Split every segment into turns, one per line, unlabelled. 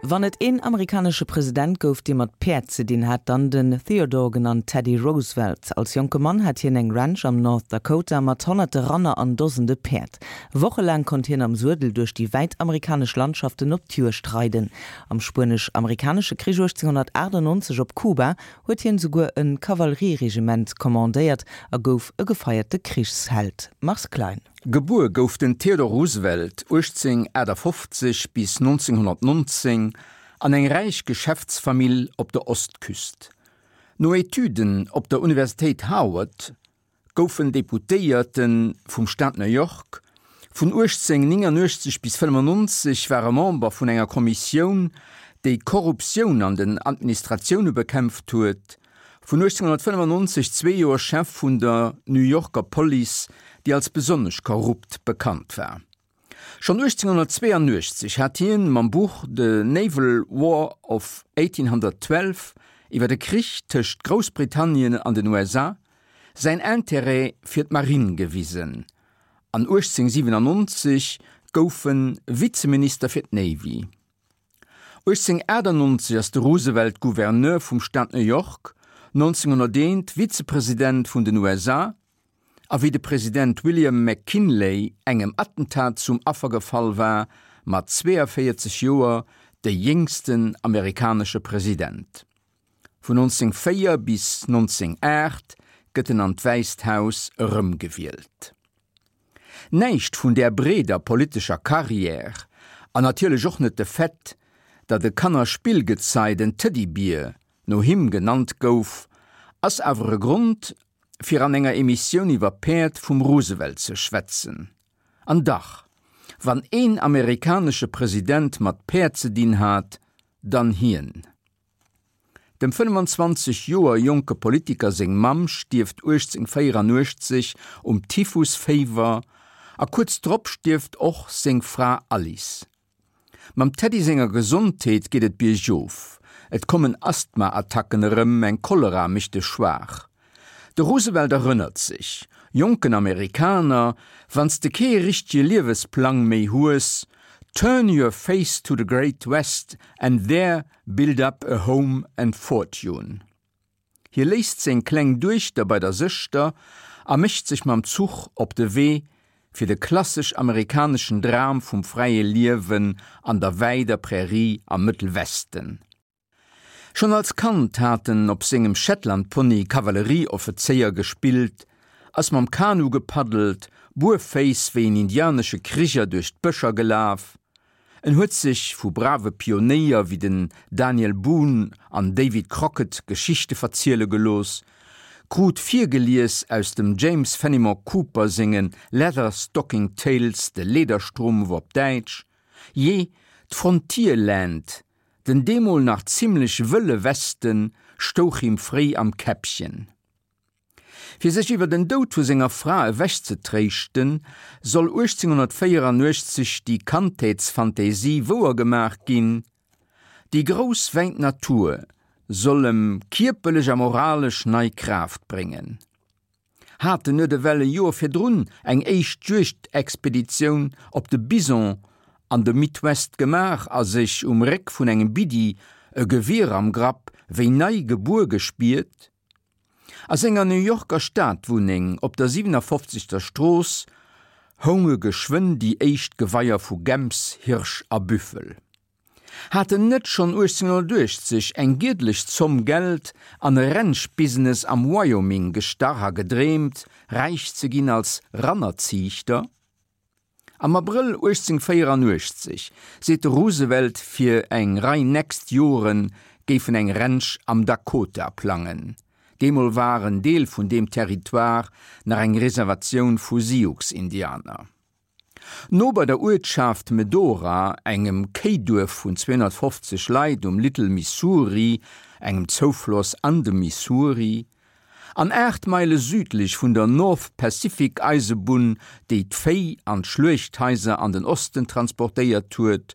Wann et een amerikanesche President gouf, dee mat Päerd ze dinn hat, dann den Theodore, genannt Teddy Roosevelt. Als jonke Mann hat hien eng Ranch am North Dakota mat honnerte Ranner an Dosende Päerd. Wochelaang konnt hien am Suedel duerch déi wäit amerikanesch Landschaften op d'Juegd reiden. Am Spuenesch-Amerikanesche Krich 1898 op Kuba huet hien souguer e Kavallerieregiment kommandéiert a gouf e gefeierte Krichsheld. Mars Klein.
Gebuer gouf den Theodore Roosevelt 1858 bis 1919 an eng räich Geschäftsfamill op der Ostküst. No Etüden op der Universitéit Harvard gouf en Deputéierte vum Staat New York. Vun 1889 bis 95 war e Member vun enger Kommissioun, déi d'Korruptioun an den Administratioune bekämpft huet. Vun 1895 zwee Joer Chef vun der New Yorker Police, déi als besonnesch korrupt bekannt war. Schonn 1882 hat hien mam Buch The Naval War of 1812, iwwer de Krich tëscht Groussbritannien an den USA, säin Interêt fir d'Marinn gewisen an 1897 gouf en Vizeminister fir d'Navy. 1898 ass de Roosevelt Gouverneur vum Staat New York, 1901 Vizepresident vun den USA, a wéi de President William McKinley engem Attentat zum Affer gefall war, mat 42 Joer de jéngsten amerikanesche President. Vun 1904 bis 1908 gëtt en an d'Wäisst Haus erëmgewielt. Näischt vun där breeder politescher Carrière, an natierlech och net de Fait, datt e Kannerspillgezei, den Teddybier, no him genannt gouf, ass awer e Grond, fir an enger Emissioun iwwer Päerd vum Roosevelt ze schwätzen. An dach, wann een amerikanesche President mat Päerd ze dinn hat, dann hien. Dem 25 Joer jonke Politiker seng Mamm stierft 1884 um Typhusféiwer a kuerz drop stierft och seng Fra Alice. Mam Teddy senger Gesondheet geet et biergof, et kommen Asthma-Attacken erëm, eng Cholera mécht e schwaach. De Roosevelt erënnert sech, Jonken Amerikaner, wann s de kee richtege Liewesplang méi hues, turn your face to the great West and there Build up a home and fortune. Hie léisst seng kleng Duechter bei der Sëschter a mécht sech mam Zuch op de Wee fir de klassesch amerikaneschen Dram vum fräie Liewen an der wäider Prärie am Mëttelwesten. Schonn als Kand hat en op sengem Shetlandpony Kavallerieoffezéier gespillt, ass mam Kanu gepaddelt, buerféiss wéi en indianesche Kriger duerch d'Bëscher gelaf, En huet sech vu brave Pionéier wéi den Daniel Boone an David Crockett Geschichte verziele gelooss, krut virgelies aus dem James Fenimore Cooper senge Leather Stocking Tales, de Lederstrumpf op Däitsch, jee, d'Frontierland, den deemol nach zimmlech wëlle Westen, stouch him fréi am Käppchen. Fir sech iwwer den Doud vu senger Fra ewechzetréischten, soll 1884 déi Kandheetsfantasie wouer gemaach ginn, Déi grouss wäit Natur soll em kierperlech a moralesch nei Kraaft bréngen. Hat en net ewell e Joer virdrun eng éischt Juegdexpeditioun op de Bison an de Midwest gemaach a sech um Réck vun engem Biddi, e Gewier am Grapp, wéi nei gebuer gespiert? A senger New Yorker Stadwunneng op der 57. Strooss hounge geschwënn déi éischt Geweier vu Gäms, Hirsch a Büffel. Hat en net schonn 1880 eng giedlech Zomm Geld an e Ranch-Business am Wyoming gestach a gedreemt, räich ze ginn als Rannerziichter? Am Abrëll 1884 seet de Roosevelt fir eng Rei nächst Jore géif en eng Ranch am Dakota plangen. Deemol war en Deel vun deem Territoire nach eng Reservatioun vu Sioux-Indianer. No bei der Uertschaft Medora, engem Kéiduerf vun 250 Leit um Little Missouri, engem Zoufloss an dem Missouri, An 8 Meile südlech vun der North Pacific Eisebunn, déi d'Véi an d'Schluechthaiser an den Osten transportéiert huet,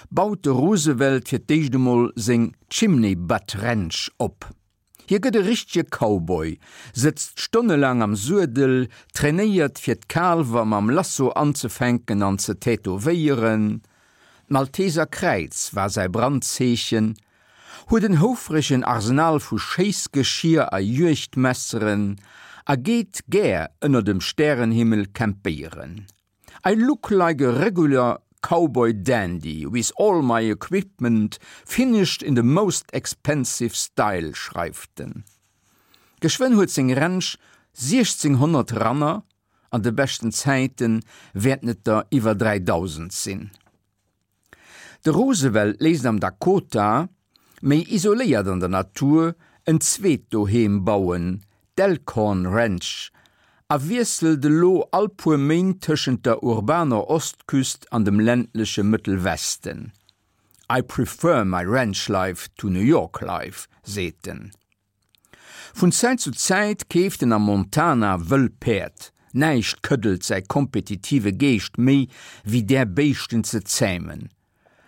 baut de Roosevelt fir d'éischt emol seng Chimney Butt Ranch op. Hie gëtt e richtege Cowboy, sëtzt stonnelaang am Suedel, trainéiert fir d'Kaalwer mam Lasso anzefänken an ze tätowéieren. d'Malteser Kräiz war säi Brandzeechen, huet en houfregen Arsenal vu Schéissgeschier a Juegdmesseren a geet gär ënner dem Stärenhimmel campéieren. I look like a regular cowboy dandy with all my equipment finished in the most expensive style, schreift en. Geschwënn huet seng Ranch 1600 Ranner, an de beschten Zäite wäerten et der iwwer 3000 sinn. De Roosevelt léisst am Dakota, méi isoléiert an der Natur, en zweet Doheem bauen, d'Elkhorn Ranch, a wiesselt elo all puer Méint tëschent der urbaner Ostküst an dem ländleche Mëttelwesten. I prefer my ranch life to New York life, seet en. Vun Zäit zu Zäit keeft en am Montana wëll Päerd. Näischt këddelt säi kompetitive Geescht méi wéi där Béischten ze zämen.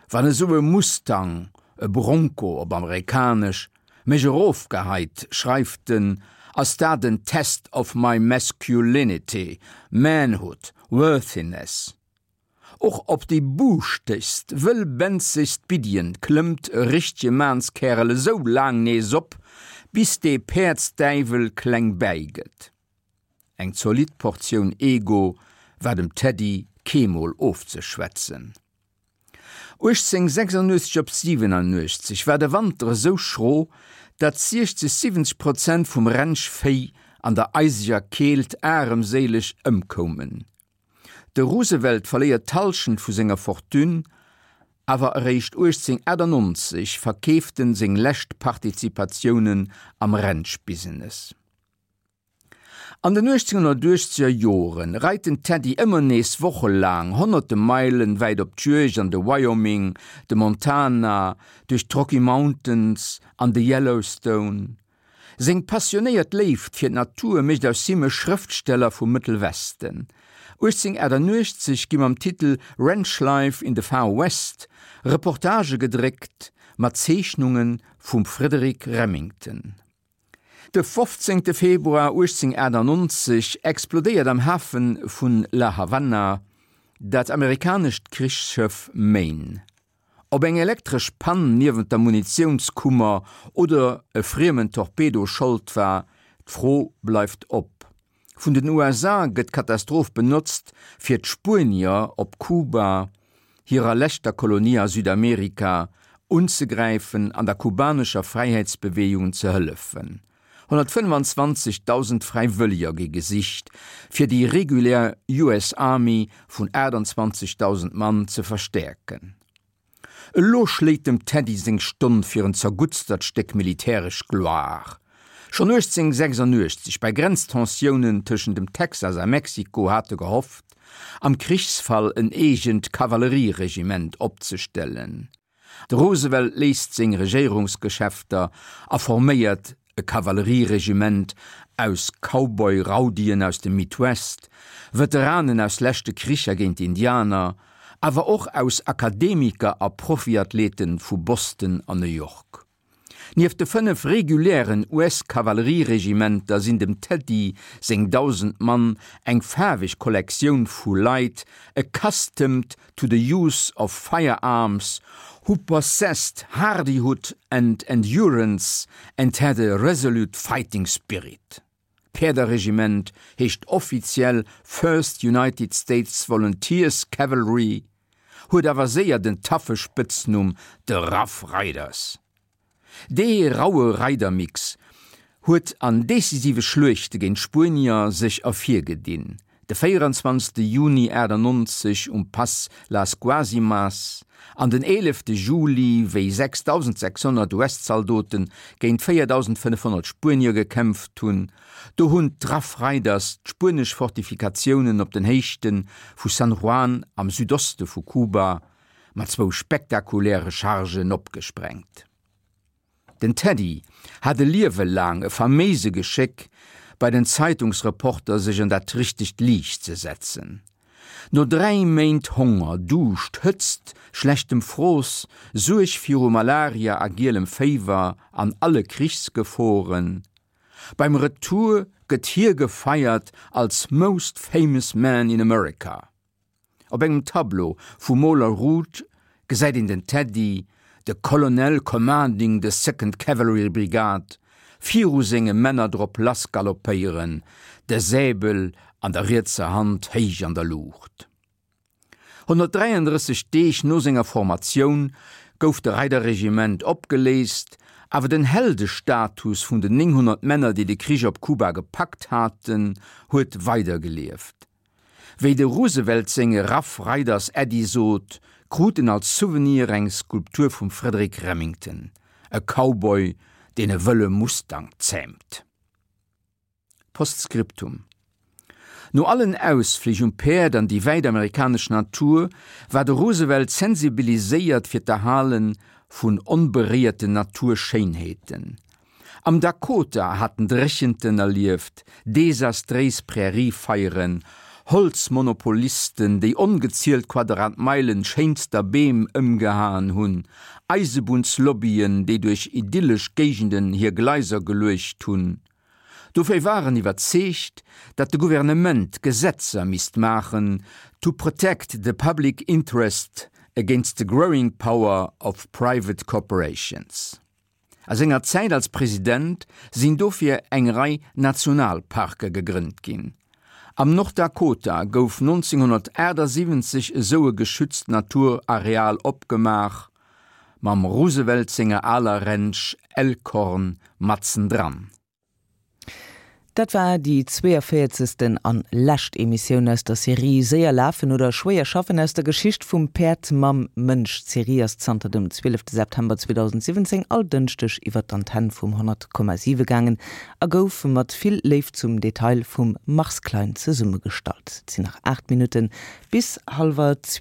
Wann esou e Mustang, e Bronco op amerikanesch, mech erofgeheit, schreift en, ass dat en Test of my masculinity, manhood, worthiness. Och op déi buuschtegst, wëllbenzegst Biddien klëmmt e richtege Maanskäerel esou laang nees op, bis dee Päerdsdäiwel kleng bäi gëtt. Eng zolidd Portioun Ego war dem Teddy keemol ofzeschwätzen. 1886 op 87 war de Wanter esou schro, datt 60, 70 Prozent vum Rennschvéi an der eiseger Keelt aremséileg ëmkoumen. De Roosevelt verléiert d'Hallschent vu senger Fortune, awer eréischt 1898 verkeeft en seng lescht Partizipatiounen am Ranch-Business. An den 1880er Jore reit den Teddy ëmmer nees wochelaang honnerte Meilen wäit op d'Juegd an de Wyoming, de Montana, duerch d'Rocky Mountains an de Yellowstone. Seng passionéiert Léift fir d'Natur mécht aus him e Schrëftsteller vum Mëttelwesten. 1888 gi mam Titel Ranch Life in the Far West Reportagë gedréckt mat Zeechnunge vum Frederic Remington. De 15 Februar 1898 explodéiert am Hafe vun La Havanna dat amerikanescht Krichsschëff Maine. Ob eng elektresch Pann niewent der Munitiounskummer oder e friemen Torpedo Schold war, d'Fro bleift op. Vun den USA gëtt d'Katastroph benotzt, fir d'Spuenier op Kuba, hirer leschter Kolonie a Südamerika, unzegräifen an der kubanescher Fräiheetsbeweegung ze hëllefen. 125.000 Fräiwëlleger gi gesicht, fir déi regulär US Army vun 28.000 Mann ze verstäerken. Elo schléit dem Teddy seng Stonn fir en zerguttstert Stéck militäresch Gloire. Schonn 1886, bei Grenztensiounen tëschent dem Texas a Mexiko, hat e gehofft, am Krichsfall en eegent Kavallerieregiment opzestellen. De Roosevelt léisst seng Regéierungsgeschäfter a forméiert e Kavallerieregiment aus Cowboy-Raudien aus dem Midwest, Veteranen aus leschte Kricher géint d'Indianer, awer och aus Akademiker a Profiathleten vu Boston an New York. Nieft de 5 regulären US-Kavallerieregimenter sinn dem Teddy seng 1.000 Mann eng faarweg Kollektioun vu Leit accustomed to the use of firearms, who possessed hardihood and endurance and had a resolute fighting spirit. D'Päerderregiment heescht offiziell First United States Volunteers Cavalry, huet awer séier den taffe Spëtznumm The Rough Riders. Dee raue Reidermix huet an decisive Schluechte géint d'Spuenier sech ervirgedinn, De 24 Juni 98 um Pass Las Guasimas an den 11 Juli, wéi 6.600 US-Zaldote géint 4.500 Spuenier gekämpft hunn, do hunn d'Rough Riders d'spuenesch Fortifikatiounen op den Héichte vu San Juan am Südoste vu Kuba mat zwou spektakuläre Chargen opgesprengt. Den Teddy hat e Liewe laang e faméise Geschéck, bei den Zeitungsreporter sech an dat richtegt Liicht ze setzen. No 3 Méint Honger, Duuscht, Hëtzt, schlechtem Frooss, Suerg viru Malaria a gielem Féiwer an alle Krichsgeforen, beim Retour gëtt hie gefeiert als Most Famous Man in America. Op engem Tableau vum Moler Ruth. gesäit een den Teddy, de Colonel commanding the Second Cavalry Brigade, viru senge Männer drop lass galoppéieren, de Säbel an der rietser Hand héich an der Luucht. 133 Deeg no senger Formatioun gouf de Reiderregiment opgeléist, awer den Heldestatus vun den 900 Männer, déi de Krich op Kuba gepackt haten, huet weidergelieft. Wéi de Roosevelt senge Rough Riders Äddi sot, krut en als Souvenir eng Skulptur vum Frederic Remington, e Cowboy, deen e wëlle Mustang zäämt. Postscriptum No allen Ausflich um Päerd an déi wäit amerikanesch Natur war de Roosevelt sensibiliséiert fir d'Erhale vun onberéierten Naturschéinheeten. Am Dakota hat en Dréchenten erlieft, desastréis Präriefeieren, Holzmonopolisten, déi ongezielt Quadratmeilen schéinster Beem ëmgehaen hunn, Eisebunnslobbyen, déi duerch idyllesch Géigenden hir Gleiser geluecht hunn. Dofir war en iwwerzeegt, datt de Gouvernement Gesetzer misst maachen to protect the public interest against the growing power of private corporations. A senger Zäit als President sinn dofir eng Rei Nationalparke gegrënnt ginn. Am Nord-Dakota gouf 1978 esou e geschützt Naturareal opgemaach, mam Roosevelt senger aler Ranch Elkhorn matzendran.
Dat war déi 42. an lescht Emissioun aus der Serie Séier lafen oder schwéier schaffen aus der Geschicht vum Päerd mam Mënsch. D'Serie ass zanter dem 12 September 2017 all Dënschdeg iwwer d'Antenn vum 100,7 gaangen a gouf mat vill Léift zum Detail vum Mars Klein zesummegestallt. Et sinn nach 8 Minutten bis hallwer.